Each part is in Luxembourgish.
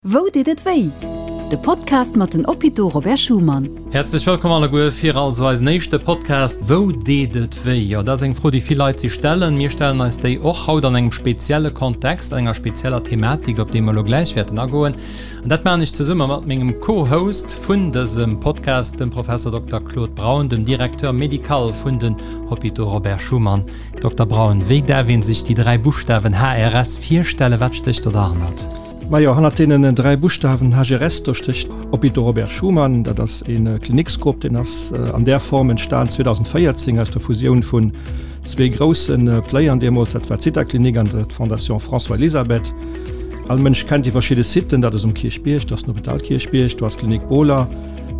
Wou deet et wéi? De Podcast mat den Hôpitaux Robert Schuman. Häerzlech wëllkomm alleguer fir also eisen éischte Podcast Wou deet et wéi? Jo, dat ass eng Fro, déi vill Leit sech stellen. Mir stellen eis déi och haut an engem spezielle Kontext, an enger spezieller Thematik, op déi mer elo gläich wäerten agoen. An dat maachen ech zesumme mat mengem Co-Host vun dësem Podcast, dem Professor Dokter Claude Braun, dem Directeur médical vun den Hôpitaux Robert Schuman. Dokter Braun, wéi däerf ee sech déi 3 Buschtawen HRS virstellen? Wat stécht do derhannert? Majo, hannert deenen 3 Buschtawen HRS, do stécht Hôpitaux Robert Schuman. Dat ass e Kliniksgrupp, deen ass an där Form entstan 2014 aus der Fusioun vun zwee grousse Playern deemools, dat war d'Zithaklinik an d'Fondation François-Elisabeth. All Mënsch kennt déi verschidde Siten, dat ass um Kierchbierg, dat ass den Hôpital Kierchbierg, do ass d'Klinik Bohler,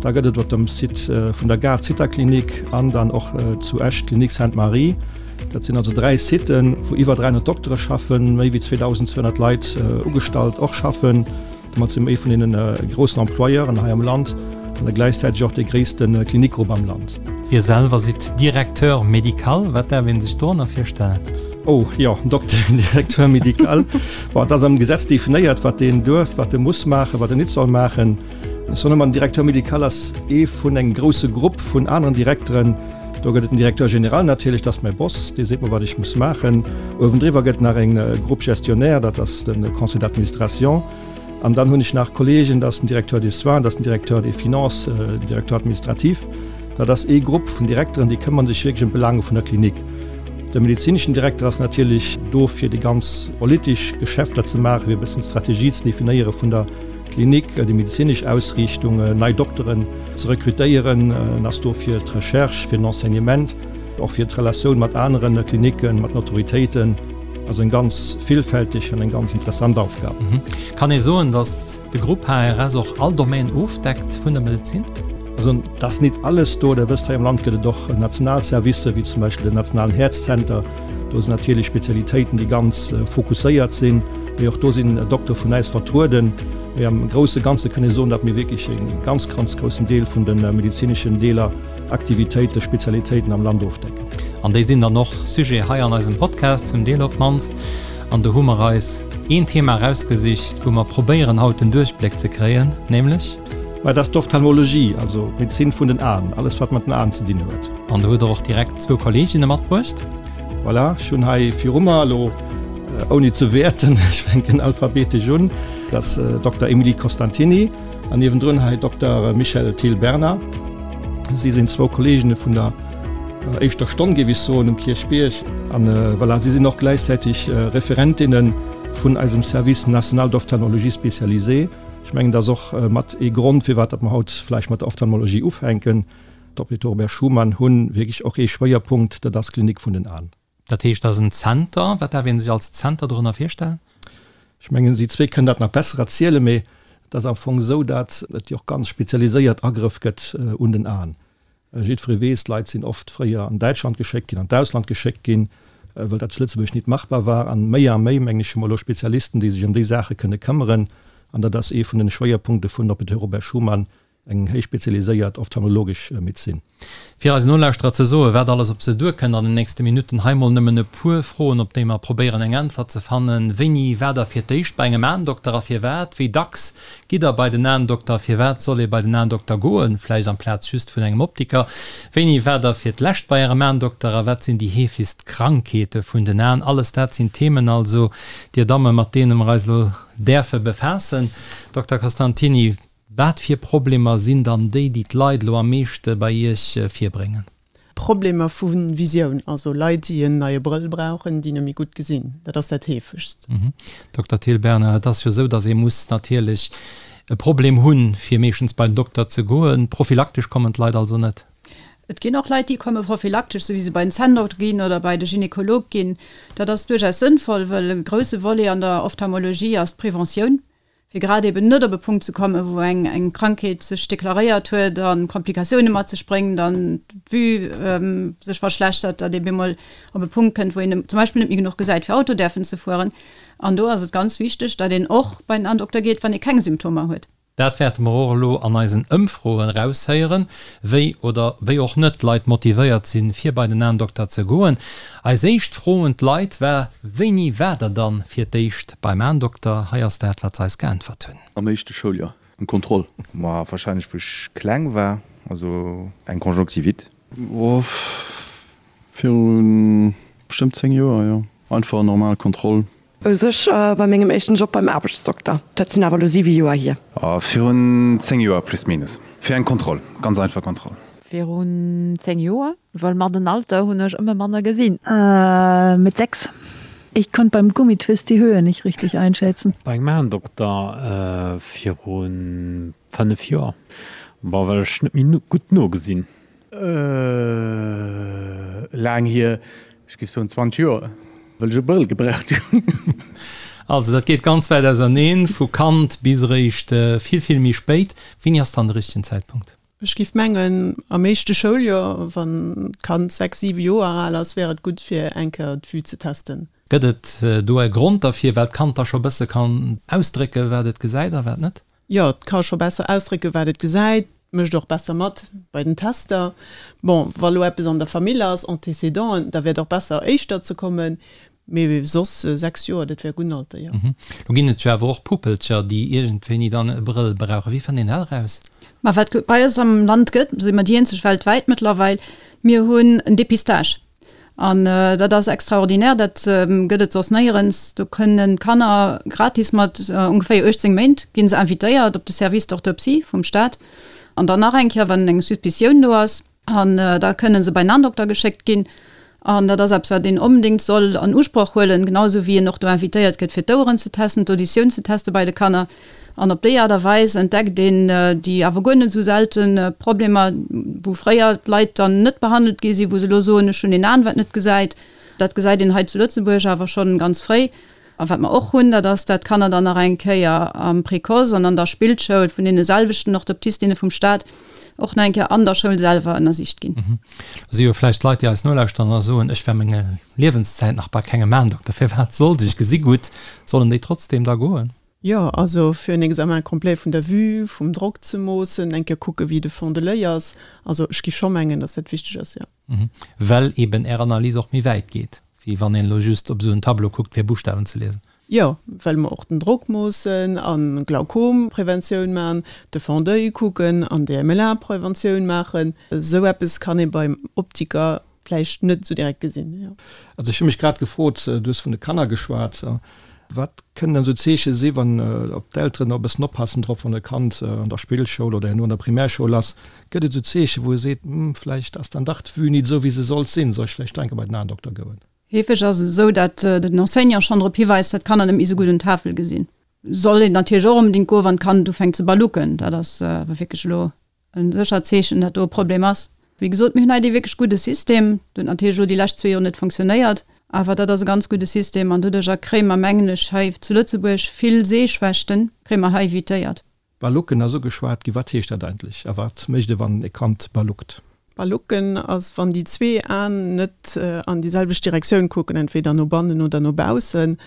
da gëtt et op dem Site vun der Gare d'Zithaklinik an dann och zu Esch d'Klinik Sainte-Marie. Dat sinn also 3 Siten, wou iwwer 300 Doktere schaffen, méi wéi 2.200 Leit ugestallt och schaffen. Domat si mer ee vun deene groussen Employeuren hei am Land an da gläichzäiteg och dee gréisste Klinikgrupp am Land. Dir selwer sidd Directeur médical. Wat däerf ee sech dorënner virstellen? Oh jo, Dokter, Directeur médical. Bon, et ass am Gesetz definéiert, wat deen duerf, wat e muss maachen, wat en nit soll maachen. Ech soen ëmmer, den Directeur médical ass ee vun engem grousse Grupp vun aneren Direkteren, Do gëtt et den Directeur général natierlech, dat ass mäi Boss, dee seet mer, wat ech muss maachen. Uewendriwwer gëtt nach eng Groupe gestionnaire, dat ass de Conseil d'administration. An dann hunn ech nach Kolleegen, dat ass den Directeur des soins, dat ass den Directeur des finances, den Directeur administratif. Dat ass ee Grupp vun Direkteren, déi këmmern sech wierklech ëm d'Belaange vun der Klinik. De medezineschen Direkter ass natierlech do, fir déi ganz politesch Geschäfter ze maachen, fir e bëssen d'Strategie ze definéiere vun der Klinik, déi medezinesch Ausriichtung, nei Dokteren ze rekrutéieren. En ass do fir d'Recherche, fir den Enseignement, och fir d'Relatioun mat anere Klinicken, mat den Autoritéiten. Also eng ganz villfälteg an eng ganz interessant Aufgab. Kann ee soen, datt de Grupp HRS och all Domaine ofdeckt vun der Medezin? Also et ass nit alles do. Der wësst, hei am Land gëtt et och national Servicer, wéi zum Beispill den nationalen Häerzzenter. Do sinn natierlech Spezialitéiten, déi ganz fokusséiert sinn. Mee och do sinn Doktere vun äis vertrueden. Mee am grousse Ganze kann ee soen, datt mir wierklech e ganz, ganz groussen Deel vun de medezineschen Deeler, Aktivitéiten, Spezialitéiten am Land ofdecken. An déi sinn dann och Sujet hei an eisem Podcast, zum Deel op d'mannst. An do hu mer eis een Thema erausgesicht, wou mer probéieren haut den Duerchbléck ze kréien, nämlech. Mä dat ass d'Ophtalmologie, also d'Medezin vun den Aen, alles wat mat den Aen ze dinn huet. An do hutt Der och direkt zwou Kolleeginne matbruecht. Voilà, ech hunn hei viru mer elo, ouni ze wäerten, ech fänken alphabetesch un, dat ass Dokter Emilie Costantini an niewendrun hei Dokter Michèle Thiel-Bernard. Si sinn zwou Kolleeginne vun der éischter Stonn, géif ech soen, um Kierchbierg. An voilà, si sinn och gläichzäiteg Referentinne vun eisem Service national d'ophtalmologie spécialisée. Ech mengen, dat ass och mat ee Grond, firwat datt mer haut vläicht mat der Ophtalmologie ufänken. D'Hôpitaux Robert Schuman hu wierklech och ee Schwéierpunkt, dat ass d'Klinik vun den Aen. Dat heescht, dat ass en Zenter. Wat däerf ee sech als Zenter dorënner virstellen? Ech mengen, si zwee kënnen dat nach besser erzielen, mee et ass am Fong esou, datt et jo och ganz spezialiséiert Agrëff gëtt un den Aen. Jiddweree weess, d'Leit sinn oft fréier an Däitschland geschéckt ginn, an d'Ausland geschéckt ginn, well dat zu Lëtzebuerg nit machbar war. An méi a méi, mengen ech, hu mer elo Spezialisten, déi sech ëm déi Saache kënne këmmeren. An dat ass ee vun den Schwéierpunkte vun Hôpitaux Robert Schuman, eng héich spezialiséiert ophtalmologesch Medezin. Fir eisen Nolauschterer ze soen, wat alles op se duerkënnt an den nächste Minutten, hei mol nëmmen e puer Froen, op déi mer probéieren eng Äntwert ze fannen, Wéini war der fir d'éischt bei engem Aendokter a firwat? Wéi dacks gitt der bei den Aendokter? Firwat soll ee bei den Aendokter goen, vläicht amplaz just vun engem Optiker? Wéini war der fir d'lescht bei ärem Aendokter a wat sinn déi heefegst Krankheete vun den Aen? Alles dat sinn Themen also, Dir Dammen, mat deene mer eis elo däerfe befaassen. Dokter Costantini, Wat fir Problemer sinn dann déi, déi d'Leit elo am meeschte bei Iech virbréngen? Problemer vu Visioun, also Leit, déi en neie Brëll brauchen, déi net méi gutt gesinn. Dat ass dat heefegst. Dokter Thiel-Bernard, et ass jo esou, datt ee muss natierlech e Problem hunn, fir meeschtens bei den Dokter ze goen. Prophylaktesch kommen d'Leit also net? Et ginn och Leit, déi komme prophylaktesch, esou wéi se bei den Zänndokter ginn oder bei de Gynekolog ginn. Dat ass duerchaus sënnvoll, wëll e grousse Volet an der Ophtalmologie ass d'Preventioun. fir grad eben net op e Punkt ze kommen, wou eng eng Krankheet sech deklaréiert huet a Komplikatioune mat sech bréngt an d'Vue sech verschlechtert, datt ee bemol op e Punkt kënnt, wou een zum Beispill net méi genuch gesäit, fir Auto däerfen ze fueren. An do ass et ganz wichteg, datt een och bei den Andokter geet, wann ee keng Symptomer huet. Dat wäerte mer och elo an eisen Ëmfroen eraushéieren, wéi oder wéi och net d'Leit motivéiert sinn, fir bei den Aendokter ze goen. Eis éischt Fro un d'Leit war, Wéini waart der dann fir d'éischt beim Aendokter? Hei ass dat, wat se eis geäntwert hunn. Am éischte Schouljoer, eng Kontroll. Ma wahrscheinlech wou ech kleng war, also eng Conjonctivite. Oh, viru bestëmmt 10 Joer, jo. Einfach en normal Kontroll. U sech bei mengem éischten Job beim Aarbechtsdokter. Dat sinn awer elo 7 Joer hier. Virun 10 Joer plus minus. Fir eng Kontroll, ganz einfach Kontroll. Virun 10 Joer, well mat den Alter hunn ech ëmmer manner gesinn. Mit 6. Ich konnt beim Gummitwist die Höhe nicht richtig einschätzen. Bei engem Aendokter virun 5 Joer, bon well ech net méi gutt nogesinn. Laang hier, ech géif soen 20 Joer, well ech e Brëll gebraucht hunn. Also dat geet ganz wäit auserneen, vu Kand bis eréischt vill, vill méi spéit. Wéini ass dann de richtegen Zäitpunkt? Ech géif mengen, am éischte Schouljoer, wann d'Kand 6, 7 Joer al ass, wär et gutt fir eng Kéier d'Vue ze testen. Gëtt et do e Grond derfir, well d'Kand da scho bësse kann ausdrécken, wat et gesäit a wat net? Jo, et ka scho besser ausdrécken, wat et gesäit, mécht och besser mat bei den Tester. Bon, wa lo eppes an der Famill ass, Antécédenten, da wär et och besser, éischter ze kommen. Mee soss 6 Joer, dat wär e gudden Alter, jo. Lo ginn et jo awer och Puppelcher, déi iergendwéini dann e Brëll brauchen. Wéi fënnt een dat eraus? Ma wat bei eis am Land gëtt, si mer déi eenzeg weltwäit mëttlerweil, mir hunn en Dépistage. An dat ass extraordinär, dat gëtt et soss néierens. Do kënnen d'Kanner gratis mat ongeféier 18 Méint gi se invitéiert op de Service d'orthoptie vum Staat. An dann nach eng Kéier, wann eng Suspicioun do ass. An da kënnen se bei en Aendokter geschéckt ginn. An dat ass eppes, wat een onbedéngt soll an Usproch huelen, genau esou wéi een och do invitéiert gëtt, fir d'Oueren ze testen, d'Auditioun ze teste bei de Kanner. An op déi Aart a Weis entdeckt een déi awer guer net esou selte Problemer, wou fréier d'Leit dann net behandelt gi sinn, wou se elo soen, ech hunn een Aen, wat net gesäit. Dat gesäit een hei zu Lëtzebuerg awer schonn ganz fréi. A wat mer och hunn, dat ass, dat d'Kanner dann nach eng Kéier am Précoce an an der Spillschoul vun deene selwechten Orthoptistinne vum Stat och nach eng Kéier an der Schoul selwer ënnersicht ginn. Do si jo vläicht Leit, déi eis nolauschteren a soen, ech war meng Liewenszäit nach bei kengem Aendokter, firwat sollt ech? Ech gesi gutt. Sollen déi trotzdem da goen? Jo, also fir en Examen complet vun der Vue, vum Drock ze moossen, eng Kéier kucke wéi de Fond de l'oeil ass. Also ech géif scho mengen, datt dat wichteg ass, jo. Well eben Är Analys och méi wäit geet, wéi wann een elo just op esou en Tableau kuckt fir Buschtawen ze liesen. Jo, well mer och den Drock moossen a Glaukompreventioun maachen, de Fond d'oeil kucken an DMLA-Preventioun maachen. Esou eppes kann ee beim Optiker vläicht net esou direkt gesinn, jo. Also ech hu mech grad gefrot, du hues vun de Kanner geschwat, wat kënnen dann esou Zeeche si wann, ob d'Elteren och e bëssen oppassen drop, wann e Kand an der Spillschoul oder herno an der Primärschoul ass, gëtt et esou Zeeche wou e seet, hm, vläicht ass dann dach d'Vue nit esou wéi se sollt sinn, soll ech vläicht do eng Kéier bei den Aendokter goen? Heefeg ass et esou, dat den Enseignant schonn drop hiweist, dat d'Kanner net méi esou gutt un d'Tafel gesinn. Soll een natierlech och onbedéngt goen, wann d'Kand ufänkt ze balucken, dat ass awer wierklech elo E séchert Zeechen, dat do e Problem ass. Wéi gesot, mir hunn hei dee wierklech gudde System. Dat huet natierlech elo déi lescht zwee Joer net fonctionnéiert, awer dat ass e ganz gudde System an doduercher kréie mer, mengen ech, hei zu Lëtzebuerg vill Sehschwächten kréie mer hei evitéiert. Balucken ass ugeschwat ginn. Wat heescht dat eigentlech a wat mécht e wann e Kand baluckt? Balucken ass, wann déi zwee Aen net an déi selwecht Direktioun kucken, entweder no bannen oder no baussen.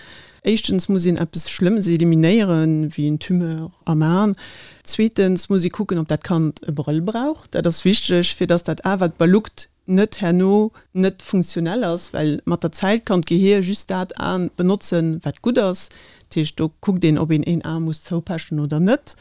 Éischtens muss een eppes Schlëmmes eliminéieren, wéi en Tumeur am Aen. Zweetens muss ee kucken, ob dat Kand e Brëll brauch. Dat ass wichteg, fir dass dat A wat baluckt net herno net funktionell ass, well mat der Zäit kann d'Gehier just dat Aen benotzen, wat gutt ass. Dat heescht, do kuckt een, ob een een A muss zoupechen oder net.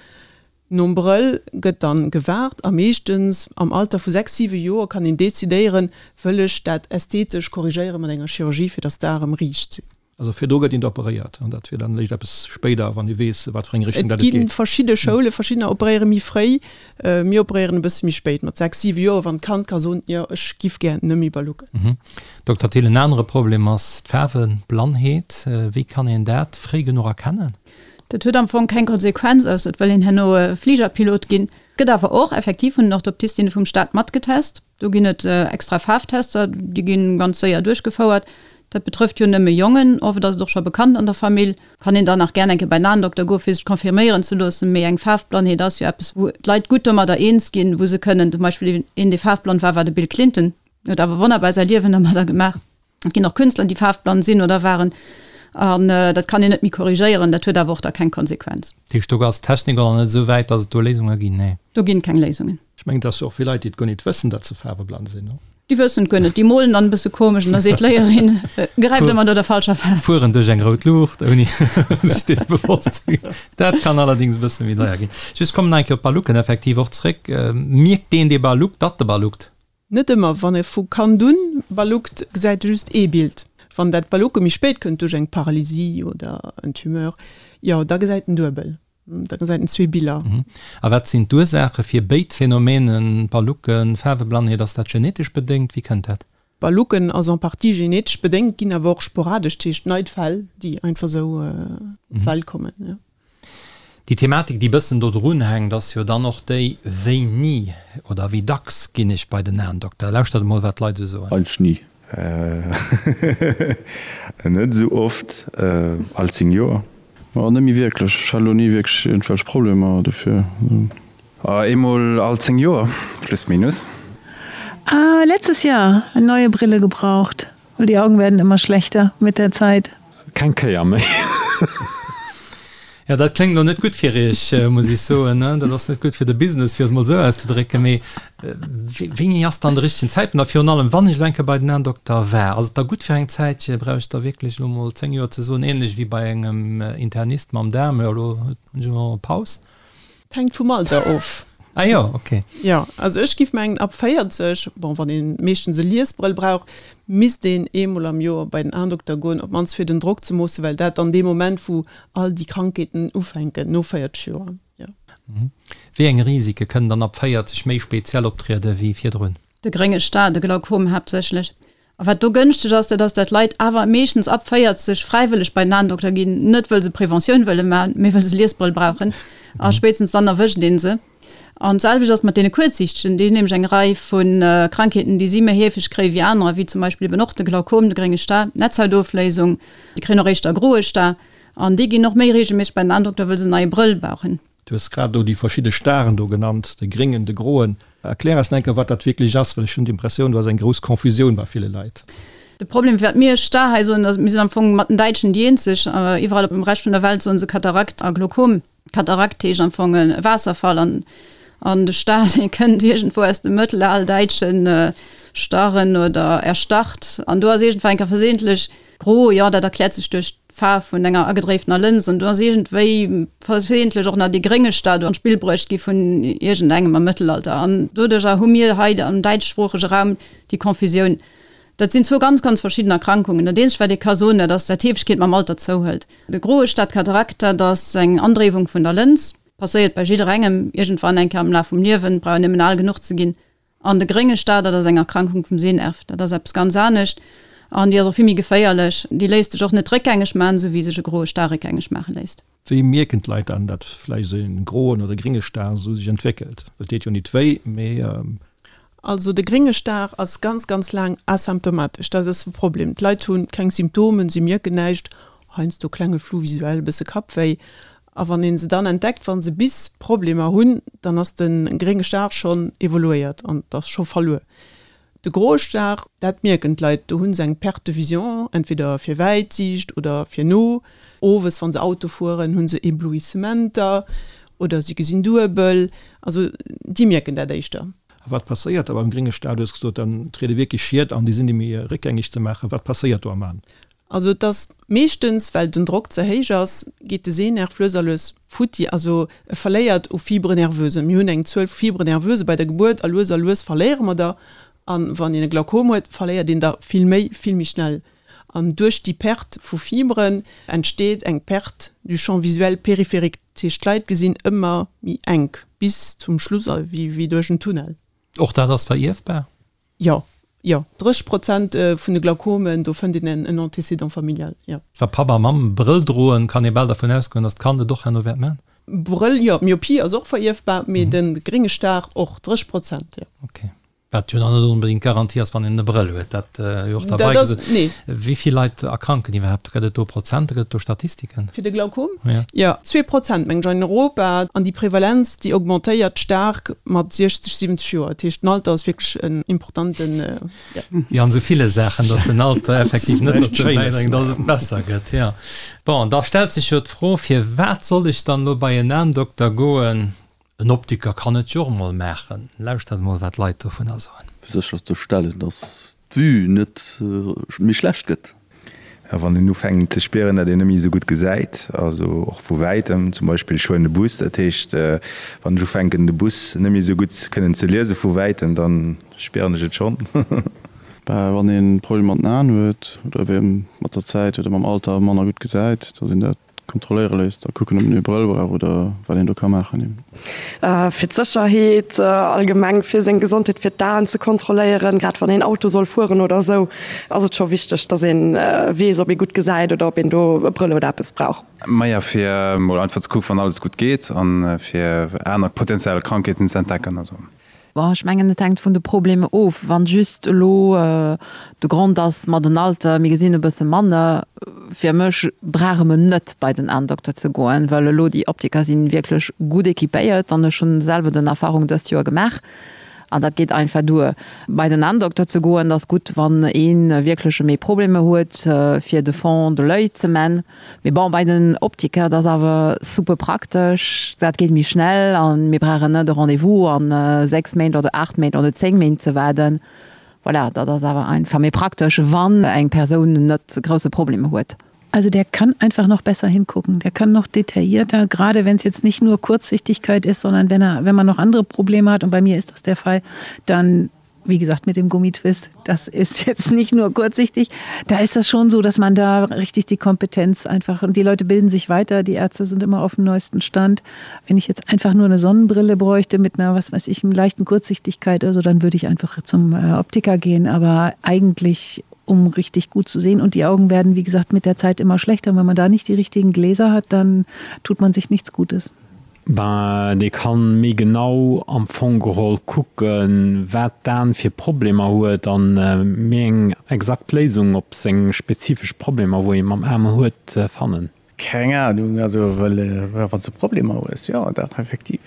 Nom Brëll gëtt dann gewaart a meeschtens am Alter vu 6, 7 Joer kann een decidéieren, wëll ech dat ästhetesch korrigéieren mat enger Chirurgie fir dass d'Ae rëm riicht sinn. Also virdru gëtt een operéiert an dat wier dann eréischt eppes spéider, wann ee weess wat fir eng Richtung Et dat et gi geet. verschidde Schoulen, verschiddener operéiere méi fréi, mir operéieren e bësse méi spéit, mat 6, 7 Joer, wann d'Kand ka soen, jo ech giff gär net méi balucken. Dokter Thill, en anere Problem ass d'Faarweblannheet. Wéi kann een dat fréi genuch erkennen? Dat huet am Fong keng Konsequenz, ausser et wëll een herno Fligerpilot ginn. Gëtt awer och effektiv vun den Orthoptistinne vum Staat matgetest. Do ginn et extra Faarftester, déi gi ganz séier duerchgefouert. Dat betrëfft jo nëmme Jongen, oft ass et och scho bekannt an der Famill. Kann een dann nach gär eng Kéier bei den Aendokter goen, fir sech confirméieren ze loossen. Mee eng Faarfblannheet ass jo eppes, wou d'Leit gutt domadder eens ginn, wou se kënnen, zum Beispill een, dee faarfblann war, war de Bill Clinton, huet awer wonnerbar säi Liewen domadder gemaach. Et ginn och Künstler, déi faarfblann sinn oder waren. An dat kann een net méi korrigéieren, dat huet awer och da keng Konsequenz. Dat heescht, do ass d'Technik och nach net esou wäit, datt et do Léisunge ginn? Nee. Do ginn keng Léisungen. Ech mengen, et ass jo och vill Leit, déi et guer nit wëssen, datt se faarweblann sinn, no? Déi wëssen et guer net. Déi molen dann e bësse komesch an da seet d'Léierin, gräift ëmmer no der falscher Faarf. Fueren duerch eng rout Luucht, ouni sech dees bewosst ze ginn. Dat kann allerdéngs e bësse méi deier ginn. Just kommen nach eng Kéier op d'Ballucken effektiv och zréck. Mierkt deen, dee balluckt, datt e balluckt? Net ëmmer. Wann e vu Kand un balluckt, gesäit e just ee Bild. Wann dat Ballucke méi spéit kënnt, duerch eng Paralysie oder en Tumeur, jo, da gesäit en duebel. Da gesäit en zwee Biller. A wat sinn d'Ursaache fir béid Phänomenen, Ballucken, Faarweblannheet? Ass dat genetesch bedéngt? Wéi kënnt dat? Ballucken ass en partie genetesch bedéngt, ginn awer och sporadesch, dat heescht nei Fäll, déi einfach esou op d'Welt kommen, jo. Déi Thematik, déi bëssen do drun hänkt, ass jo dann och déi, Wéini oder wéi dacks ginn ech bei den Aendokter? Lauschtert emol, wat d'Leit esou soen. Eigentlech ni. Net esou oft, all 10 Joer. Ma net méi wierklech. Ech hat elo ni wierklech iergendwelch Problemer dofir. Eemol all 10 Joer, plus minus. Letztes Jahr eine neue Brille gebraucht. Weil die Augen werden immer schlechter mit der Zeit. Keng Kéier méi. Jo, dat kléngt elo net gutt fir Iech, muss ech soen. Dat ass net gutt fir de Business, fir et mol esou auszedrécken. Mee wéini ass dann de richtegen Zäitpunkt? A virun allem, wann ech elo eng Kéier bei den Aendokter war, ass et da gutt fir eng Zäitche? Brauch ech da wierklech elo mol 10 Joer ze soen, ähnlech wéi bei engem Internist mam Daarm, jo elo hunn ech elo Paus? Et hänkt vum Alter of. Ah jo, ok. Jo, also ech giff mengen ab 40, bon wann een meeschtens e Liesbrëll brauch, misst een eemol am Joer bei den Aendokter goen, op mannst fir den Drock ze moossen, well dat dann dee Moment wou all déi Krankheeten ufänken, no 40 Joer, jo. Wéi eng Risike kënnen dann ab 40 méi speziell optriede wéi virdrun? De grénge Star, de Glaukom haaptsächlech. A wat do gënschteg ass, dat ass, dat Leit awer meeschtens ab 40 fräiwëlleg bei den Aendokter ginn, net wëll se Preventioun wëlle maachen, mee wëll se Liesbrëll brauchen. A spéitstens dann erwëscht ee se. An d'selwecht ass mat deene Kuerzsiichtegen, déi hunn nämlech eng Rei vu Krankheeten, déi si méi heefeg kréie wéi anerer, wéi zum Beispill eben och de Glaukom, de grénge Star, d'Netzhautofléisung, déi kréien och éischter groe Star. An déi ginn och méi reegelméisseg bei den Aendokter, wëll se en neie Brëll brauchen. Du hues grad elo déi verschidde Staren do genannt, de gréngen, de groen. Erklär eis nach eng Kéier, wat dat wierklech ass, well ech hunn d'Impressioun, do ass eng grouss Confusioun bei ville Leit. De Problem, wat mir Star hei soen, ass, mir sinn am Fong mat den Däitschen déi eenzeg. Iwwerall op dem Rescht vun der Welt soen se Katarakt a Glaukom. Katarakt heescht am Fong e Waasserfall an an de Star, dee kënnt iergendwou aus dem mëttelaldäitschen starren oder erstarrt. An do ass iergendwann eng Kéier versehentlich gro, jo, dat erkläert sech duerch d'Faarf vun enger agedréiftener Lëns an do ass iergendwéi versehentlich och nach dee grénge Star do an d'Spill bruecht gi vun iergendengem am Mëttelalter an doduercher hu mir hei am däitschsproochege Raum déi Confusioun. Dat sinn zwou ganz, ganz verschidden Erkrankungen. Dat eenzegt wat ee ka soen, dat ass, dat d'Heefegkeet mam Alter zouhëlt. De groe Star, d'Katarakt, dat ass eng Andréiwung vun der Lëns, passéiert bei jidderengem iergendwann eng Kéier am Laf vum Liewen, brauch een nëmmen al genuch ze ginn. An de grénge Star, dat ass eng Erkrankung vum Sehnerv. Dat ass eppes ganz anescht an déi ass och vill méi geféierlech. Déi léisst sech och net réckgängeg maachen, esou wéi sech e groe Star réckgängeg maache léisst. Wéi mierken d'Leit dann, datt vläicht esou e groen oder grénge Star esou sech entwéckelt? Et deet jo nit wéi, mee. Also de grénge Star ass ganz, ganz laang asymptomatesch. Dat ass de Problem. D'Leit hu keng Symptomen, si mierken näischt, heiansdo klenge Flou visuel, e bësse Kappwéi. A wann ee se dann entdeckt, wa se bis Problemer hunn, dann ass de grénge Star schonn evoluéiert an et ass scho verluer. De groe Star, dat mierken d'Leit, do hu se eng Perte de vision, entweder fir wäit Siicht oder fir no. Owes, wa se Auto fueren, hu se Eblouissementer oder si gesinn duebel. Also déi mierken dat éischter. A wat passéiert da beim grénge Star? Du hues gesot, dann triede wierklech Schied an, déi sinn net méi réckgängeg ze maachen. Wat passéiert do am An? Also et ass meeschtens, well den Drock ze héich ass, geet de Sehnerv lues a lues futti, also e verléiert u Fibres nerveuses. Mir hunn eng Zuel vu Fibres nerveuses bei der Gebuert a lues a lues verléiere mer der. A wann een e Glaukom huet, verléiert een der vill méi, vill méi schnell. An duerch déi Perte vu Fibren entsteet eng Perte du champ visuel périphérique. Dat heescht, d'Leit gesinn ëmmer méi enk, bis zum Schluss, wéi duerch en Tunnel. Och dat ass verierfbar? Jo, jo, 30 Prozent vun de Glaukomen, do fënnt een en Antécédent familial, jo. Wa Papp a Mamm Brëll droen, kann ee bal dervun ausgoen, datt d'Kand et och herno wäert man. Brëll, jo, d'Myopie ass och verierfbar, mee de grénge Star och, 30 Prozent, jo. Ok. Wat jo dann net onbedéngt d'Garantie ass, wann een e Brëll huet, dat jo och derbei gesot. Wéi vill Leit erkranken iwwerhaapt? Gëtt et do Prozenter, gëtt et do Statistiken? Fir de Glaukom? Jo, 2% mengen ech an Europa. An déi Prevalenz, déi augmentéiert staark mat 60, 70 Joer. Dat heescht, den Alter ass wierklech en importanten, jo. Wéi an esou ville Saachen, datt den Alter effektiv net dozou bäidréngt, datt et besser gëtt, jo. Bon, da stellt sech jo d'Fro, Firwat soll ech dann elo bei en Aendokter goen? En Optiker kann et jo och emol maachen. Lauschtert emol wat d'Leit dovunner soen. Fir sécher ze stellen, dass d'Vue net méi schlecht gëtt. Wann een ufänkt ze spieren, datt een net méi esou gutt gesäit, also och vu wäitem, zum Beispill ech huelen de Bus, dat heescht wann ech ufänken de Bus net méi esou gutt kënnen ze liese vu wäitem, da spieren ech et schonn. Wann ee Problemer mat den Aen huet oder eben mat der Zäit oder mam Alter manner gutt gesäit, dass een dat Kontrolléiere léisst a kucken, ob en e Brëll brauch oder wat een do ka maachen eben. Fir d'Sécherheet allgemeng, fir seng Gesondheet, fir d'Aen ze kontrolléieren, grad wann een Auto soll fueren oder esou, ass et scho wichteg, dass ee weess, ob ee gutt gesäit oder ob een do e Brëll oder eppes brauch. Maja, fir mol einfach ze kucken, wann alles gutt geet a fir aner potenziell Krankheeten ze entdecken. Also. Bon, ech mengen, et hänkt vun de Problemer of. Wann just elo de Grond ass, ma den Alter, mir gesinn e bësse manner, fir mech brauche mer net bei den Aendokter ze goen, well elo déi Optiker si wierklech gutt équipéiert an ech hunn selwer den Erfahrung dëst Joer gemaach an dat geet einfach duer. Bei den Aendokter ze goen, ass gutt, wann ee wierklech méi Problemer huet, fir de Fond de l'oeil ze man. Mee bon, bei den Optiker, dat ass awer super praktesch, dat geet méi schnell an mir brauchen net e Rendez-vous an 6 Méint oder 8 Méint oder 10 Méint ze waarden. Voilà, dat ass awer einfach méi praktesch, wann eng Persoun net grousse Problemer huet. Also der kann einfach noch besser hingucken, der kann noch detaillierter, gerade wenn es jetzt nicht nur Kurzsichtigkeit ist, sondern wenn er, wenn man noch andere Probleme hat und bei mir ist das der Fall, dann wie gesagt mit dem Gummitwist, das ist jetzt nicht nur kurzsichtig. Da ist das schon so, dass man da richtig die Kompetenz einfach und die Leute bilden sich weiter, die Ärzte sind immer auf dem neuesten Stand. Wenn ich jetzt einfach nur eine Sonnenbrille bräuchte mit einer was weiß ich leichten Kurzsichtigkeit also dann würde ich einfach zum äh, Optiker gehen, aber eigentlich um richtig gut zu sehen und die Augen werden wie gesagt mit der Zeit immer schlechter. Wenn man da nicht die richtigen Gläser hat, dann tut man sich nichts Gutes. Ben, dee kann méi genau am Fong geholl kucken, wat d'An fir Problemer huet an méi eng exakt Léisung op seng spezifesch Problemer, wou ee mam Aen huet, fannen. Keng Ahnung, also well wann s de Problemer hues, jo dach effektiv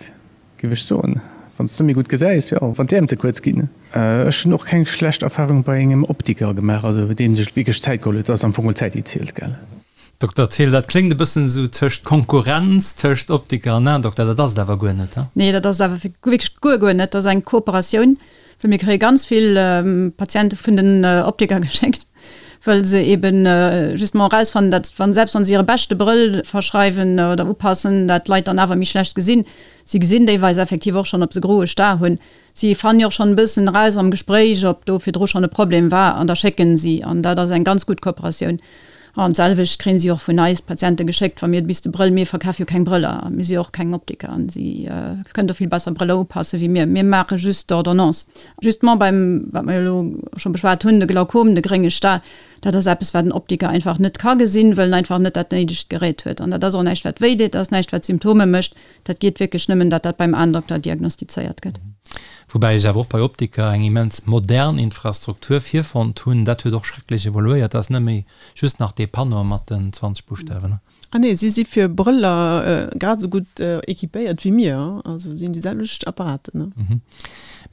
giff ech soen, wann s de méi gutt gesäis, jo, wann d'Äerm ze kuerz ginn. Ech hunn och keng schlecht Erfahrung bei engem Optiker gemaach, also deen sech wierklech Zäit geholl huet, dat ass am Fong geholl d'Zäit déi zielt, gell. Dokter Thill, dat kléngt e bëssen esou tëscht Konkurrenz tëscht Optiker an Aendokter, dat ass et awer guer net, he? Nee, dat ass et awer wierklech guer, guer net. Dat ass eng Kooperatioun, well mir kréie ganz vill Patiente vun den Optiker geschéckt, wëll se eeben justement erausfannen, datt wann, selbst wann se hire beschte Brëll verschreiwen oder upassen, dat d'Leit dann awer méi schlecht gesinn. Si gesinn deelweis effektiv och schonn, ob se groe Star hunn. Si fannen jo och schonn e bëssen eraus am Gespréich, ob do virdru schonn e Problem war an da schécken si. An dat ass eng ganz gutt Kooperatioun. An d'selwecht kréien si och vun eis Patiente geschéckt, wa mir bis de Brëll, mir verkafe jo keng Brëller a mir si jo och keng Optiker an si kënnen do vill besser Brëller upasse wéi mir. Mir maache just d'Ordonnance. Justement beim, wat mer jo elo scho beschwat hunn, de Glaukom, de grénge Star, dat ass eppes, wat en Optiker einfach net ka gesinn, wëll en einfach net dat néidegt Gerät huet. An dat ass och näischt, wat wéi deet, dat ass näischt, wat Symptome mécht. Dat geet wierklech nëmmen, datt dat beim Aendokter diagnostizéiert gëtt. Woubäi ech awer och bei Optiker eng immens modern Infrastruktur virfonnt hunn. Dat huet och schrecklech evoluéiert. Dat ass net méi just nach dee Panneau mat den 20 Buschtawen. Ah nee, si si fir Brëller grad esou gutt équipéiert wéi mir. Also si hunn déi selwecht Apparaten.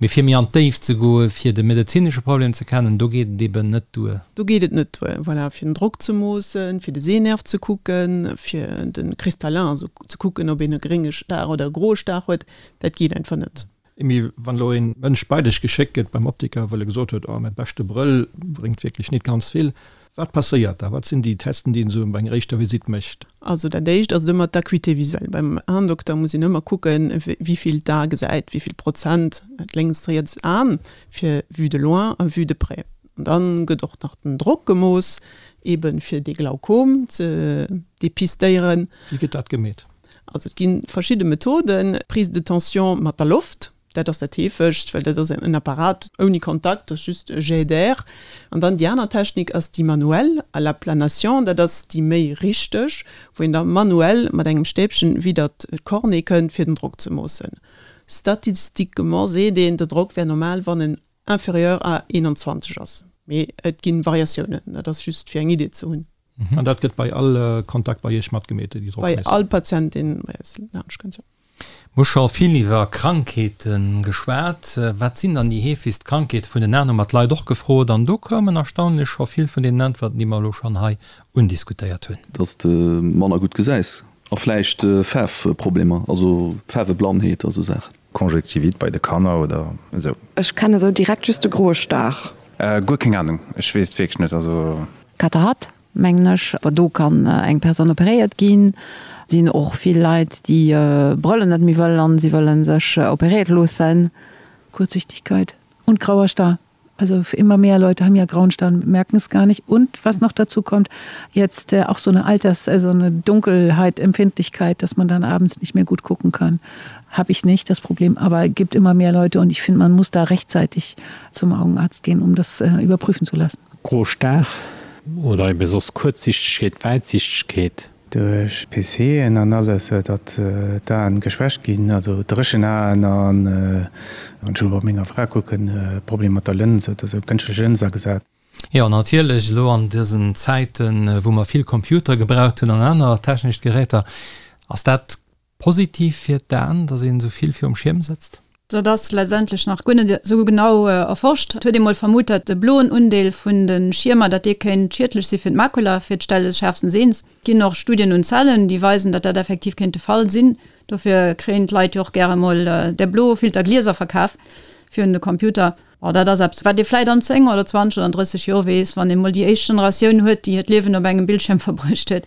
Mee fir méi an d'Déift ze goen, fir de medezinesche Problem ze kennen, do geet et eben net duer. Do geet et net duer, voilà, fir den Drock ze moossen, fir de Sehnerv ze kucken, fir de Kristallin, also ze kucken, ob een e grénge Star oder e groe Star huet, dat geet einfach net. Emy, wann elo ee Mënsch bei dech geschéckt gëtt beim Optiker, well e gesot huet, oh, mäi beschte Brëll bréngt wierklech nit ganz vill, wat passéiert da? Wat sinn déi Testen, déi een esou bei enger éischter Visitt mécht? Also dat éischt ass ëmmer d'Acuité visuelle. Beim Aendokter muss een ëmmer kucken, wéi vill d'A gesäit, wéi vill Prozent dat lénkst, riets Aen, fir Vue de loin a Vue de près. An dann gëtt och nach den Drock gemooss, eben fir dee Glaukom ze depistéieren. Wéi gëtt dat gemeet? Also et gi verschidde Methoden, Prise de tension mat der Loft, dat ass dat heefegst, well dat ass en Apparat ouni Kontakt, dat ass just e Jet d'air. An dann déi aner Technik ass déi manuell, à la planation, dat ass déi méi richteg, wou een da manuell mat engem Stäbchen widder d'Cornée kënnt, fir den Drock ze moossen. Statistiquement seet een, de Drock wär normal, wann en. inférieur à 21 ass. Mee et gi Variatiounen, dat ass just fir eng Idee ze hunn. An dat gëtt bei all Kontakt bei Iech matgemeet, déi Bei all Patient, deen bei eis laanscht kënnt, jo. Mir hu scho vill iwwer Krankheete geschwat. Wat sinn dann déi heefegst Krankheete vun den Aen, hu mer d'Leit och gefrot. An do koumen erstaunlech scho vill vun deenen Äntwerten, déi mer elo schonn hei undiskutéiert hunn. Dass de manner gutt gesäis a vläicht Faarfproblemer, also Faarweblannheet a sou Saachen. Conjonctivite bei de Kanner oder esou. Ech kennen esou direkt just de groe Star. Guer keng Ahnung, ech weess et wierklech net, also. Katarakt, mengen ech. Awer do kann eng Persoun operéiert ginn. Et sinn och vill Leit, déi Brëllen net méi wëllen an si wëlle sech operéiert loossen. Kurzsichtigkeit und grauer Star. Also immer mehr Leute haben ja grauen Star und merken es gar nicht. Und was noch dazu kommt, jetzt auch so eine Alters-, also eine Dunkelheitempfindlichkeit, dass man dann abends nicht mehr gut gucken kann. Habe ich nicht das Problem, aber gibt immer mehr Leute und ich finde, man muss da rechtzeitig zum Augenarzt gehen, um das überprüfen zu lassen. Gro Star oder ebe soss Kuerzsichtegkeet, Wäitsichtegkeet. Duerch PCen an alles, datt d'Aen geschwächt ginn, also dréchen Aen an, wann ech elo bei menger Fra kucken, Problem mat der Lëns oder sou, kënschtlech Lëns agesat. Jo, natierlech, elo an dësen Zäiten, wou mer vill Computer gebraucht hunn an aner technesch Geräter, ass dat Positiv fir d'Aen, dass een esou vill virum Schierm sëtzt? Dat ass letztendlech nach guer net esou genau erforscht. Et huet ee mol vermutt, dat de bloen Undeel vun de Schiermer, dat dee kéint schiedlech si fir d'Makula, fir d'Stell des schärfsten Sehens. Et ginn och Studien un Zellen, déi weisen, dat dat effektiv kéint de Fall sinn. Dofir kréien d'Leit jo och gäre mol där blo Filterglieser verkaf fir un de Computer. Bon, dat ass eppes, wat ee vläit an 10 oder 20 oder an 30 Joer weess, wann ee mol déi éischt Generatioun huet, déi hiert Liewen op engem Bildschierm verbruecht huet.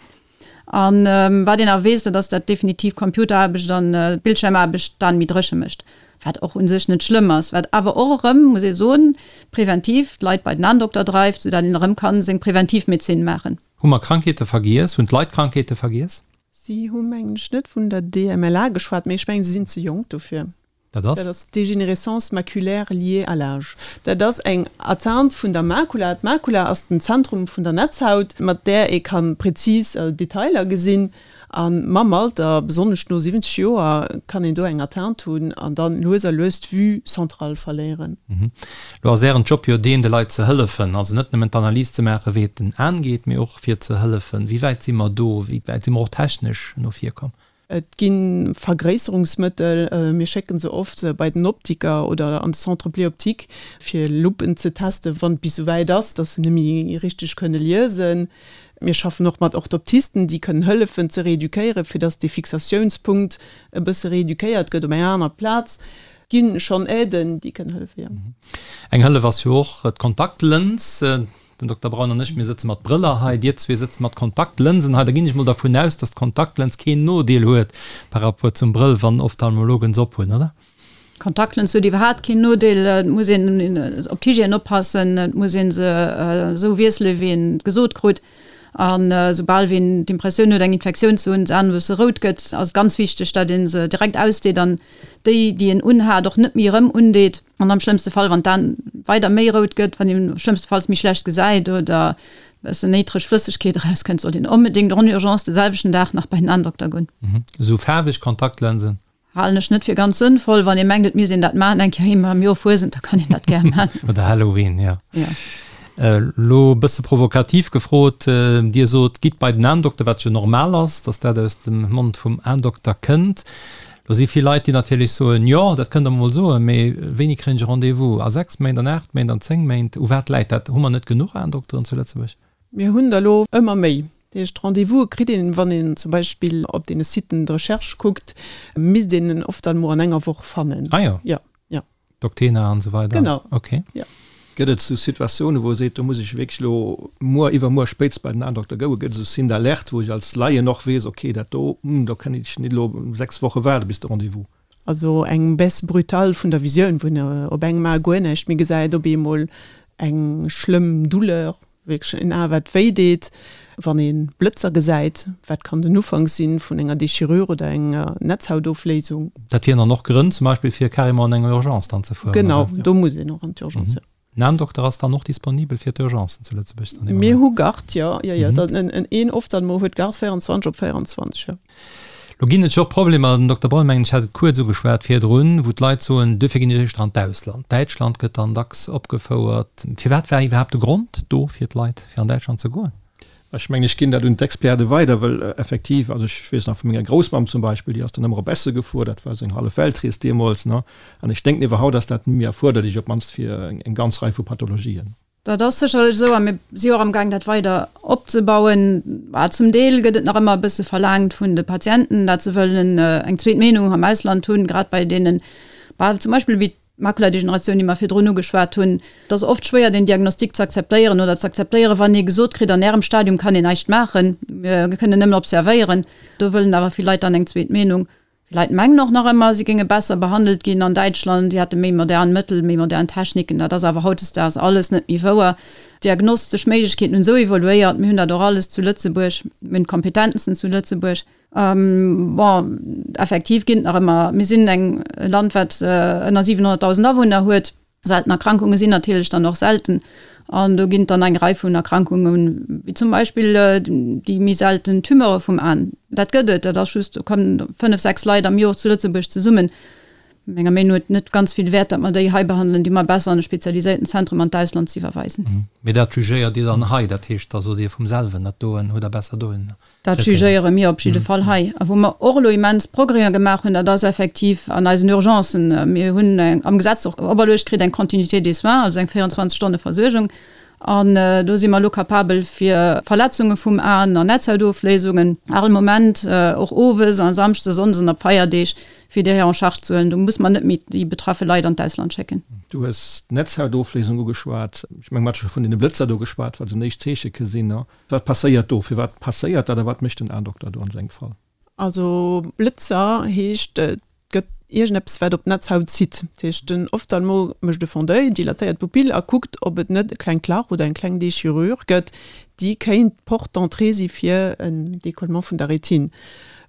An wat een nach weess, dat ass, dat definitiv Computeraarbecht an Bildschiermaarbecht d'Aen méi dréche mécht, wat och u sech net schlëmm ass, wat awer och erëm, muss ee soen, präventiv d'Leit bei den Aendokter dreift, soudatt een erëm ka seng Präventivmedezin maachen. Hu mer Krankheete vergiess? Hunn d'Leit Krankheete vergiess? Si hu mengen ech net vun der DMLA geschwat, mee ech mengen se sinn ze jonk dofir. Dat ass? Dat ass d'Dégénérescence maculaire liée à l'âge. Dat ass eng Atteinte vun der Makula. D'Makula ass den Zentrum vun der Netzhaut, mat där ee ka prezis Detailer gesinn. A mam Alter, besonnesch no 70 Joer, kann een do eng Atteinte hunn an dann lues a lues d'Vue centrale verléieren. Lo ass Ären Job jo deen, de Leit ze hëllefen. Also net nëmmen d'Analys ze maachen, wéi et den Aen geet, mee och fir ze hëllefen. Wéi wäit si mer do? Wéi wäit si mer och technesch no vir komm? Et gi Vergréisserungsmëttel, mir schécke se oft bei den Optiker oder an de Centre Pléoptique, fir Luppen ze testen, wann et bis esouwäit ass, datt se net méi richteg kënne liesen. Mir schaffen och mat Orthoptisten, déi kënnen hëllefen ze reeduquéieren, fir datt dee Fixatiounspunkt e bësse reeduquéiert gëtt op eng aner Plaz. Et gi schonn Aiden, déi kënnen hëllefen, jo. Eng Hëllef ass jo och d'Kontaktlëns. Den Dokter Braun an ech, mir sëtze mat Brëller hei, Dir zwee sëtzt mat Kontaktlënsen hei. Da ginn ech mol dervun aus, dass d'Kontaktlëns keen Nodeel huet par rapport zum Brëll, wann Ophtalmologen se ophunn, oder? D'Kontaktlëns huet iwwerhaapt keen Nodeel. Et muss een op d'Hygiène oppassen, et muss ee se esou wiessele wéi een et gesot krut. An esoubal wéi een d'Impressioun huet, eng Infektioun ze hunn, d'Aen e bësse rout gëtt, ass et ganz wichteg, datt ee se direkt ausdeet an déi, déi een unhat, och net méi erëm undeet. An am schlëmmste Fall, wann d'An weider méi rout gëtt, wann een schlëmmstefalls méi schlecht gesäit oder e bëssen néitreg Flëssegkeet erauskënnt, sollt een onbedéngt en urgence de selwechten Dag nach bei den Aendokter goen. Esou faarweg Kontaktlensen? Halen ech net fir ganz sënnvoll. Wann ee mengt, et misst een dat maachen, eng Kéier eemol am Joer Fuesent, da kann een dat gär maachen. Oder Halloween, jo. Jo. Elo e bësse provokativ gefrot, Dir sot, gitt bei den Aendokter, wat jo normal ass, datt dat aus dem Mond vum Aendokter kënnt. Do si vill Leit, déi natierlech soen, Jo, dat kënnt Der mol soen, mee wéini kréien ech e Rendez-vous? A 6 Méint, an 8 Méint, an 10 Méint? U wat läit dat? Hu mer net genuch Aendokteren zu Lëtzebuerg? Mir hunn der elo ëmmer méi. Dat heescht, Rendez-vouse kritt een, wann een zum Beispill op deene Siten de recherche kuckt, misst een en oft dann emol an enger Woch fannen. Ah jo. Jo, jo. Doctena an esou weider? Genau. Ok. Jo. Gëtt et esou Situatiounen, wou e seet, do muss ech wierklech elo muer, iwwermuer spéitst bei den Aendokter goen? Gëtt et esou Signes d'alerte, wou ech als Laien och weess, ok, dat do, hm, do kann ech net elo 6 Woche waarde bis de Rendez-vous? Also eng Baisse brutale vun der Visioun, wou een op engem A guer näischt méi gesäit, op eemol eng schlëmm Douleur, Wierklech en A wat wéi deet, wann ee Blëtzer gesäit, wat kann den Ufank sinn vun enger Déchirure oder enger Netzhautofléisung. Dat wieren dann och Grënn zum Beispill fir carrément an eng Urgence dann ze fueren, oder? Genau, do muss een och an d'Urgence, jo. En Aendokter ass dann och disponibel fir d'Urgencen zu Lëtzebuerg dann? Mir hu Garde, jo, jo, jo. Een Ophtalmo huet Garde 24 op 24, jo. Lo ginn et jo och Problemer, den Dokter Braun, mengen ech, hat et kuerz ugeschwat virdrun, wou d'Leit soen, duerfir ginn ech éischter an d'Ausland. Däitschland gëtt dann dacks opgefouert. Firwat war iwwerhaapt de Grond do fir d'Leit, fir an Däitschland ze goen? Ech mengen, ech ginn dat un d'Experte weider, well effektiv, also ech weess nach vu menger Groussmamm zum Beispill, déi ass dann ëmmer op Essen gefuer, dat war esou eng hallef Weltrees deemools, ne? An ech denken iwwerhaut ass dat net méi erfuerderlech, op d'mannst fir eng ganz Rei vu Pathologien. Dat ass sécherlech esou a mir si och amgaang dat weider opzebauen. Bah, zum Deel gëtt et nach ëmmer e bësse verlaangt vun de Patienten, dat se wëllen eng zweet Meenung am Ausland hunn, grad bei deenen, bah, zum Beispill wéi d'Makuladegeneratioun, déi mer virdrun ugeschwat hunn. Et ass oft schwéier den Diagnostic ze akzeptéieren oder ze akzeptéieren, wann ee gesot kritt, an Ärem Stadium kann een näischt maachen, mir kënnen nëmmen observéieren. Do wëllen awer vill Leit dann eng zweet Meenung. Vill Leit mengen och nach ëmmer, si géinge besser behandelt ginn an Däitschland, si hätte méi modern Mëttel, méi modern Techniken. Dat ass awer hautdesdaags alles net méi wouer. D'diagnostesch Méiglechkeeten hunn esou evoluéiert, mir hunn dat och alles zu Lëtzebuerg, mir hunn d'Kompetenzen zu Lëtzebuerg. Bon, effektiv ginn et nach ëmmer, mir sinn eng e Land, wat ënner 700.000 Awunner huet. Selten Erkrankunge sinn natierlech dann och selten an do ginn et dann eng Rei vun Erkrankungen, wéi zum Beispill déi méi selten Tumeure vum An. Dat gëtt et, dat ass just, do kommen 5, 6 Leit am Jor zu Lëtzebuerg zesummen. Menger Meenung no huet et net ganz vill Wäert, datt mer déi hei behandelen, déi mer besser an e spezialiséierten Zentrum an d'Ausland ze iwwerweisen. Mee dat jugéiert Dir dann hei, dat heescht, da sot Dir vum selwen, dat doen hutt Der besser dohinner. Dat jugéiere mir op jidde Fall hei. A wou mer och elo immens Progrèsen gemaach hunn, dat ass effektiv an eisen Urgencen. Mir hunn am Gesetz och operluecht kritt eng Continuité des soins, also eng 24 Stonne Versuergung. An do si mer elo capabel fir Verletzunge vum Aen an Netzhautofléisungen all Moment, och owes a Samschdes, Sonndes an op Feierdeeg, fir déi hei en charge ze huelen. Do muss mer net méi déi betraffe Leit an d'Ausland schécken. Du hues d'Netzhautofléisung ugeschwat. Ech menge mer hate scho vun deene Blëtzer do geschwat, wat esou en éischt Zeeche ke sinn. Wat passéiert do? Firwat passéiert dat a wat mécht den Aendokter do an esou engem Fall? Also Blëtzer heescht, et gëtt iergendeppes wat op d'Netzhaut zitt. Dat heescht den Ophtalmo mécht e Fond d'oeil, dilatéiert d'Pupill a kuckt ob et net e klengt Lach oder eng kleng Déchirure gëtt, déi kéint d'Porte d'entrée si fir en Décollement vun der Rétine.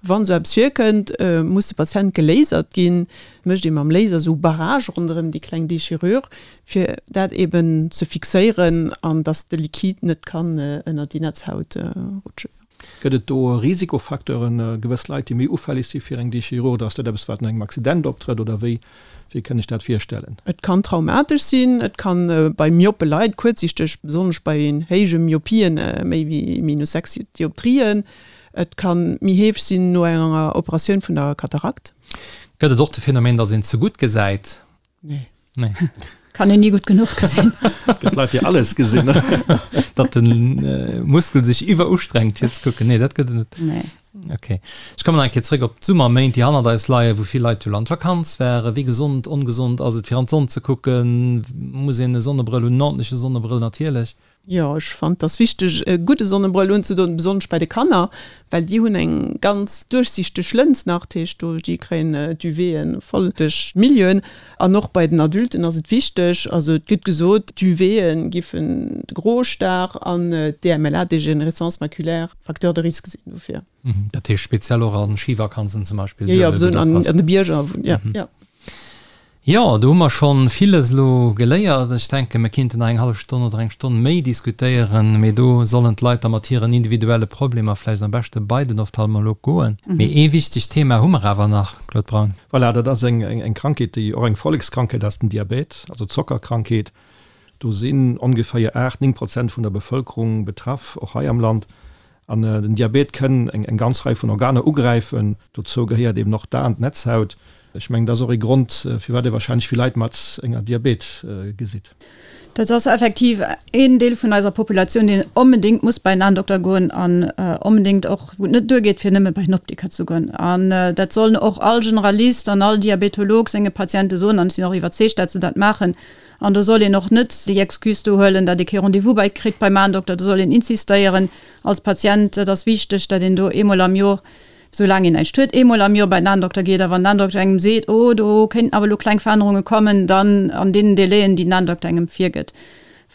Wann esou eppes virkënnt, muss de Patient gelasert ginn. Mécht ee mam Laser esou Barrage ronderëm déi kleng Déchirure, fir dat eben ze fixéieren an dass de Liquide net kann ënner déi Netzhaut rutschen. Gëtt et do Risikofacteuren, gewëss Leit, déi méi ufälleg si fir eng Déchirure, oder ass dat eppes, wat no engem Accident optrëtt, oder wéi, wéi kënn ech dat virstellen? Et kann traumatesch sinn, et kann bei myope Leit, kuerzsichteg, besonnesch bei héije Myopien, méi wéi minus 6 Dioptrien, et kann méi heefeg sinn no enger Operatioun vun der Katarakt. Gëtt et och de Phänomen, dass een ze gutt gesäit? Nee. Nee. Kann een ni gutt genuch gesinn. Gëtt Leit, déi alles gesinn. Datt de Muskel sech iwwerustrengt fir ze kucken. Nee, dat gëtt et net. Nee. Okay. Ech kommen nach eng Kéier zréck op d'Summerméint, déi hannert eis leien, wou vill Leit jo an d'Vakanz waren. Wéi gesond, ongesond ass et fir an d'Sonn ze kucken? Muss een e Sonnebrëll hunn? En ordentleche Sonnebrëll natierlech. Jo, ech fannen, et ass wichteg e gudde Sonnebrëll unzedoen, besonnesch bei de Kanner, well déi hunn eng ganz duerchsichteg Lëns nach, dat heescht do déi kréien d'UVen voll duerch d'Milieuen. An och bei den Adulten ass et wichteg, also et gëtt gesot, d'UVen giffen de Grostar an d'DMLA, Dégénérescence maculaire, Facteur de risque sinn dofir. Dat heescht speziell och a Schivakanzen zum Beispill? Jo, jo, besonnesch an de Bierger, jo, jo. Jo, do hu mer schonn villes elo geléiert. Ech denken, mir kinnten nach eng hallef Stonn oder eng Stonn méi diskutéieren, mee do sollen d'Leit da mat hiren individuelle Problemer vläicht am beschte bei den Ophtalmolog goen. Mee ee wichtegt Thema hu mer awer nach, Claude Braun. Voilà, dat ass eng Krankheet, déi och eng Vollekskrankheet ass, den Diabet, also d'Zockerkrankheet. Do sinn ongeféier 8, 9 Prozent vun der Bevëlkerung betraff, och hei am Land. An den Diabet kënn eng ganz Rei vun Organer ugräifen. Dozou gehéiert eben och d'Aen, d'Netzhaut. Ech mengen, dat ass och ee Grond, firwat ee wahrscheinlech vill Leit mat enger Diabet gesitt. Dat ass effektiv een Deel vun eiser Populatioun, deen onbedéngt muss bei en Aendokter goen an onbedéngt och, wou et net duergeet, fir nëmme bei en Optiker ze goen. An dat sollen och all Generalist an all Diabetolog senge Patiente soen, an ech sinn och iwwerzeegt, dat se dat maachen. An do soll een och net déi Excuse do huelen, datt ee kee Rendez-vous bei kritt beim Aendokter. Do soll een insistéieren als Patient. Et ass wichteg, datt een do eemol am Jor, soulaang een näischt huet, eemol am Jor bei den Aendokter geet. A wann den Aendokter engem seet, oh do kéinten awer elo kleng Verännerunge kommen, dann an deenen Délaiën, déi den Aendokter engem virgëtt.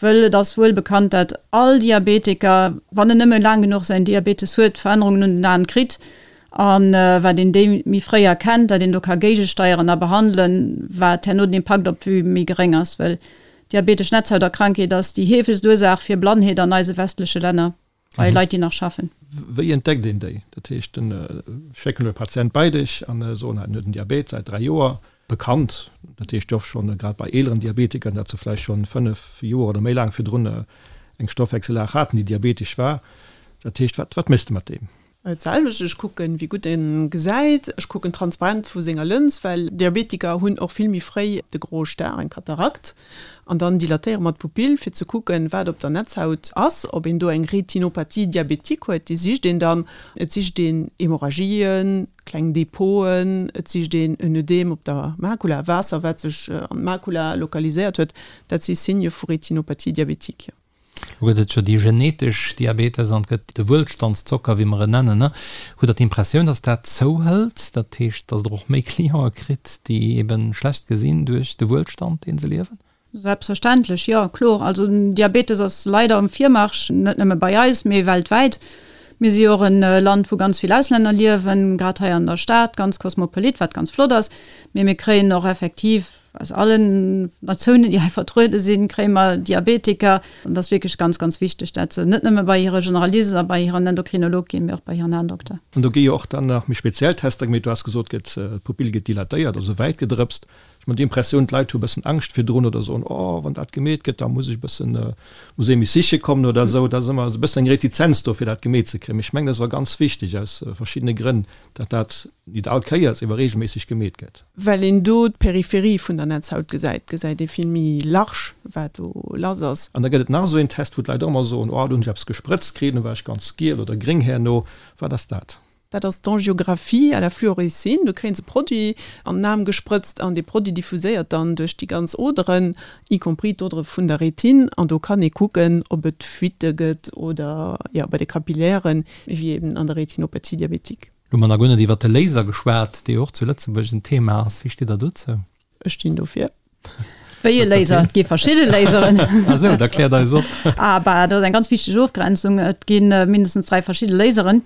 Wëll et ass wuel bekannt, datt all Diabetiker, wann en nëmme laang genuch säin Diabetes huet, Verännerungen un den Aen kritt. A wat een déi méi fréi erkennt, dat een do ka géigesteieren a behandelen, wat herno den Impakt op d'Vue méi geréng ass. Well diabetesch Netzhauterkrankheet ass déi heefegst Ursaach fir Blannheet an eise westleche Länner. Bei Leit, déi nach schaffen. Wéi entdeckt een déi? Dat heescht, den schécken elo e Patient bei dech an soen, en huet en Diabet säit 3 Joer, bekannt. Dat heescht jo och schonn, grad bei eeleren Diabetikern, datt se vläicht schonn 5 Joer oder méi laang virdrun eng Stoffwechsellag haten, déi diabetesch war. Dat heescht, wat, wat méchs de mat deem? Et selwecht, ech kucken, wéi gutt en gesäit, ech kucken d'Transparenz vu senger Lëns, well Diabetiker hunn och vill méi fréi de groe Star, eng Katarakt, an dann dilatéiere mer d'Pupill, fir ze kucken, wat op der Netzhaut ass, ob een do eng Retinopathie diabétique huet, déi sicht een dann. Et sicht een Hemorrhagien, kleng Depoten, et sicht een en Ödem op der Makula, Waasser, wat sech an d'Makula lokaliséiert huet, dat si Signe vu Retinopathie diabétique, jo. Lo gëtt et jo déi genetesch Diabetes an et gëtt de Wuelstandszocker, wéi mer en nennen. Hutt Der d'Impressioun, datt dat zouhëlt, dat heescht, datt Der och méi Clientë kritt, déi ebe schlecht gesinn duerch de Wuelstand, dee se liewen? Selbstverständlech, jo, kloer. Also den Diabetes ass leider um Virmarsch, net nëmme bei eis, mee weltwäit. Mir si jo och e Land, wou ganz vill Auslänner liewen, grad hei an der Stad, ganz kosmopolit, wat ganz flott ass. Mee mir kréien och effektiv Aus allen Natiounen, déi hei vertruede sinn, kréie mer Diabetiker. An et ass wierklech ganz, ganz wichteg, dat se net nëmme bei hire Generalist a bei hiren Endokrinolog ginn, mee och bei hiren Aendokter. An do gi jo och dann nach méi speziell Tester gemeet. Du has gesot, gëtt, d'Pupill gëtt dilatéiert, also wäit gedrëpst. Ech hunn d'Impressioun, d'Leit hu e bëssen Angscht virdrun oder soen, oh, wann dat gemeet gëtt, da muss ech e bëssen, muss ee mech siche kommen oder esou. Da ass ëmmer esou e bëssen eng Retizenz do, fir dat gemeet ze kréien. Mee ech mengen, dat ass awer ganz wichteg aus verschiddene Grënn, datt dat nit all Kéiers, ewer regelméisseg gemeet gëtt. Well een do d'Peripherie vun der Netzhaut gesäit, gesäit ee vill méi large, wat do lass ass. An da gëtt et nach esou een Test, wou d'Leit och ëmmer soen, oh, do hunn ech eppes gesprëtzt kritt, do war ech ganz giel oder gréng herno. Wat ass dat? Dat ass d'Angiographie à la fluorescine. Do kréie se Produit an den Aarm gesprëtzt an dee Produit diffuséiert dann duerch déi ganz Oderen, y compris d'Odere vun der Retine. An do kann ee kucken, ob et Fuitte gëtt oder, jo, bei de Kapillären, wéi eben an der Retinopathie diabétique. Lo hu mer nach guer net iwwert de Laser geschwat, dee jo och zu Lëtzebuerg en Thema ass. Wéi steet Der dozou? Ech stinn dofir. Wéi e Laser? Et gi verschidde Laseren. Ah sou, da kläert eis op. Ah bah, do ass eng ganz wichteg Ofgrenzung. Et gi mindestens 3 verschidde Laseren.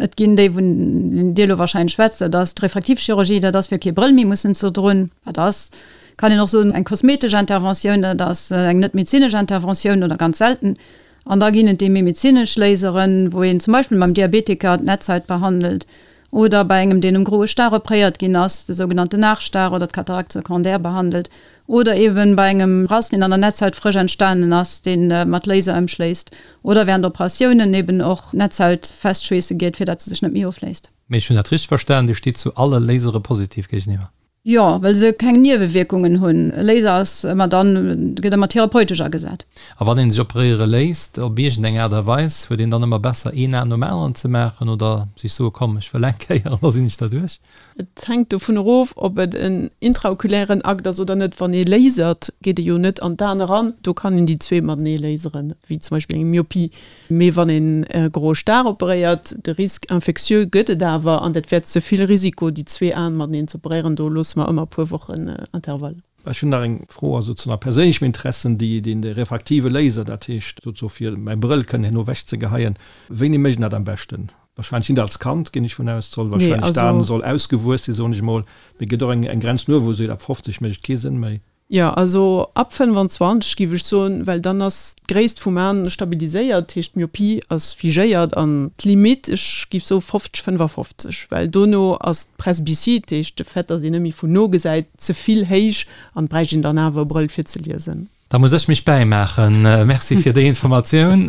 Et ginn déi, vun Dir elo wahrscheinlech schwätzt, dat ass d'Refraktivchirurgie, dat ass fir kee Brëll méi mussen ze droen. Dat ass, kann een och soen, eng kosmetesch Interventioun, dat ass eng net medezinesch Interventioun oder ganz selten. An da ginn et déi méi medezinesch Laseren, wou een zum Beispill beim Diabetiker d'Netzhaut behandelt oder bei engem, deen um groe Star opréiert ginn ass, de sougenannte Nachstar oder d'Cataracte secondaire behandelt oder eeben bei engem Rass, deen an der Netzhaut frësch entstanen ass, dee mat Laser ëmschléisst oder während Operatiounen eeben och d'Netzhaut festschweesse geet, fir dat se sech net méi ofléist. Mee ech hunn dat richteg verstan, Dir steet zu alle Lasere positiv géigeniwwer? Jo, well se keng Niewewierkungen hunn. E Laser ass ëmmer dann, gëtt ëmmer therapeutesch agesat. A wann een sech operéiere léisst, op iergend eng Aart a Weis, huet een dann ëmmer besser een Aen nom aneren ze maachen oder sech soe komm ech wëll eng Kéier an da sinn ech derduerch? Et hänkt dovun erof, ob et en intraoculären Akt ass oder net. Wann ee lasert, geet ee jo net an d'Aen eran, do kann een déi zwee matenee laseren, wéi zum Beispill eng Myopie. Mee wann een e groe Star operéiert, de Risque infectieux gëtt et awer, an dat wär ze vill Risiko, déi zwee Aen mateneen ze operéieren. Do loosse mer ëmmer e puer Wochen Intervall. Ech hunn nach eng Fro, also zu nach perséinlechem Interessen, déi deen de refraktive Laser, dat heescht souzo fir mäi Brëll kënnen herno ewech ze geheien, wéini mécht een dat am beschten? Wahrscheinlech nit als Kand, ginn ech vun aus, soll wahrscheinlech d'Aen soll ausgewuess sinn, soen ech emol, mee gëtt och eng eng Grenz no wou seet ab 50 mécht et kee Sënn méi. Jo, also ab 25 giff ech soen, well dann ass d'Gréisst vum Aan stabiliséiert, dat heescht d'Myopie ass figéiert an d'Limite, ech giff soe 50, 55, well dono ass d'Presbytie, dat heescht de Fait, datt een net méi vun no gesäit, ze vill héich an et bräicht een dann awer e Brëll fir ze liesen. Da muss ech mech bäimaachen. Merci fir déi Informatioun.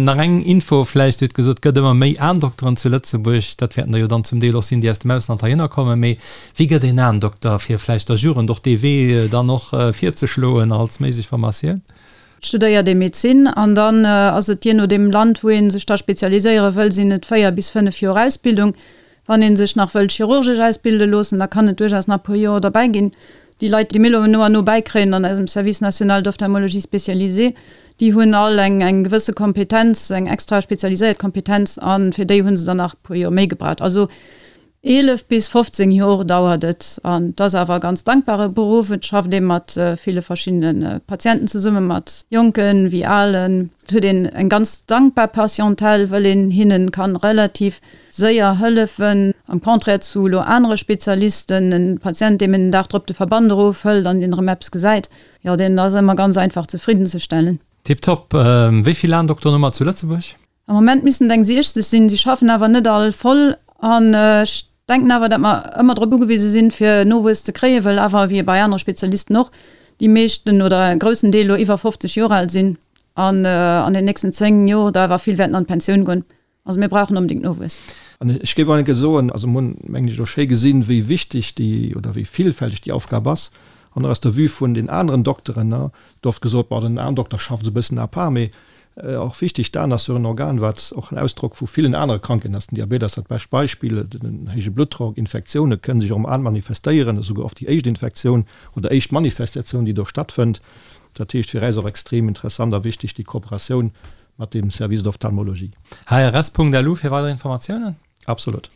Nach eng Info vläicht, Dir hutt gesot, et gëtt ëmmer méi Aendokteren zu Lëtzebuerg. Dat wäerten der jo dann zum Deel och sinn, déi aus dem Ausland heihinner kommen. Mee Wéi gëtt een Aendokter, fir vläicht der Jugend och dee Wee dann och virzeschloen als méiglech Formatioun? Et studéiert ee Medezin an dann ass et jee no deem Land, wou ee sech da spezialiséiere wëll, sinn et 4 bis 5 Joer Ausbildung. Wann ee sech nach wëllt chirurgesch ausbilde loossen, da kann et duerchaus nach e puer Joer derbäi ginn. Déi Leit, déi mir elo no an no bäikréien an eisem Service national d'ophtalmologie spécialisée, déi hunn all eng eng gewësse Kompetenz, eng extra spezialiséiert Kompetenz a fir déi hu se dann nach e puer Joer méi gebraucht. Also 11 bis 15 Jor dauert et an et ass awer e ganz dankbare Beruff. Et schafft ee mat ville verschiddene Patienten zesummen, mat Jonken wéi Alen. Et huet een eng ganz dankbar Patientèle, wëll een hinnen kann relativ séier hëllefen, am Contraire zu elo anere Spezialisten. En Patient, deem een den Dag drop de Verband erofhëlt an deen erëm eppes gesäit, jo deen ass ëmmer ganz einfach zefriddenzestellen. Tiptop. Wéi vill Aendokteren hu mer zu Lëtzebuerg? Am Moment missten et eng 60 sinn. Si schaffen awer net all voll an ech denken awer, datt mer ëmmer drop ugewise sinn, fir Nowuess ze kréien, well awer, wéi bei anere Spezialisten och, déi meeschten oder e groussen Deel elo iwwer 50 Joer al sinn an an den nächsten 10 Joer der awer vill wäerten an d'Pensioun goen. Also mir brauchen onbedéngt Nowuess. An ech géif och enke soen, also mir hunn, mengen ech, elo schéi gesinn, wéi wichteg déi oder wéi villfälteg déi Aufgab ass. An och aus der Vue vun den aneren Dokteren, ne, gëtt oft gesot, bon, den Aendokter schafft esou e bëssen à part, mee och wichteg, d'Aen ass jo en Organ, wat och en Ausdrock vu villen anere Krankheeten ass. Den Diabet ass dat bescht Beispill, den héije Bluttdrock, Infektioune kënnen sech och am An manifestéieren, esouguer oft déi éischt Infektioun oder éischt Manifestatioun, déi do stattfënnt. Dat heescht fir äis och extrem interessant a wichteg déi Kooperatioun mat dem Service d'ophtalmologie. Hrs.lu fir weider Informatiounen. Absolut.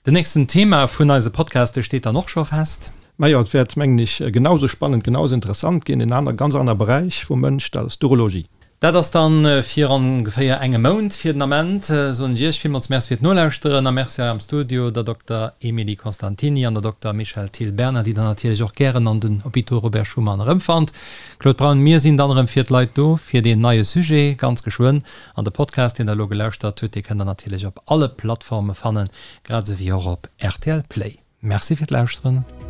Den nächsten Thema vun eise Podcaste steet dann och scho fest. Majo, et wäert, mengen ech, genau sou spannend, genau sou interessant ginn. En aner, ganz aner Beräich vum Mënsch, dat ass d'Urologie. Dat ass dann fir ongeféier engem Mount. Fir den Ament soen ech Iech villmools Merci fir d'Nolauschteren a Merci hei am Studio der Dokter Emilie Constantini an der Dokter Michèle Thill-Berner, déi der natierlech och gären an den Hôpitaux Robert Schuman erëmfannt. Claude Braun, Mir sinn dann erëm fir d'Leit do fir deen neie Sujet ganz geschwënn. An de Podcast, deen der elo gelauschtert hutt, dee kënnt der natierlech op alle Plattforme fannen, grad esou wéi och op rtl Play. Merci fir d'Lauschteren.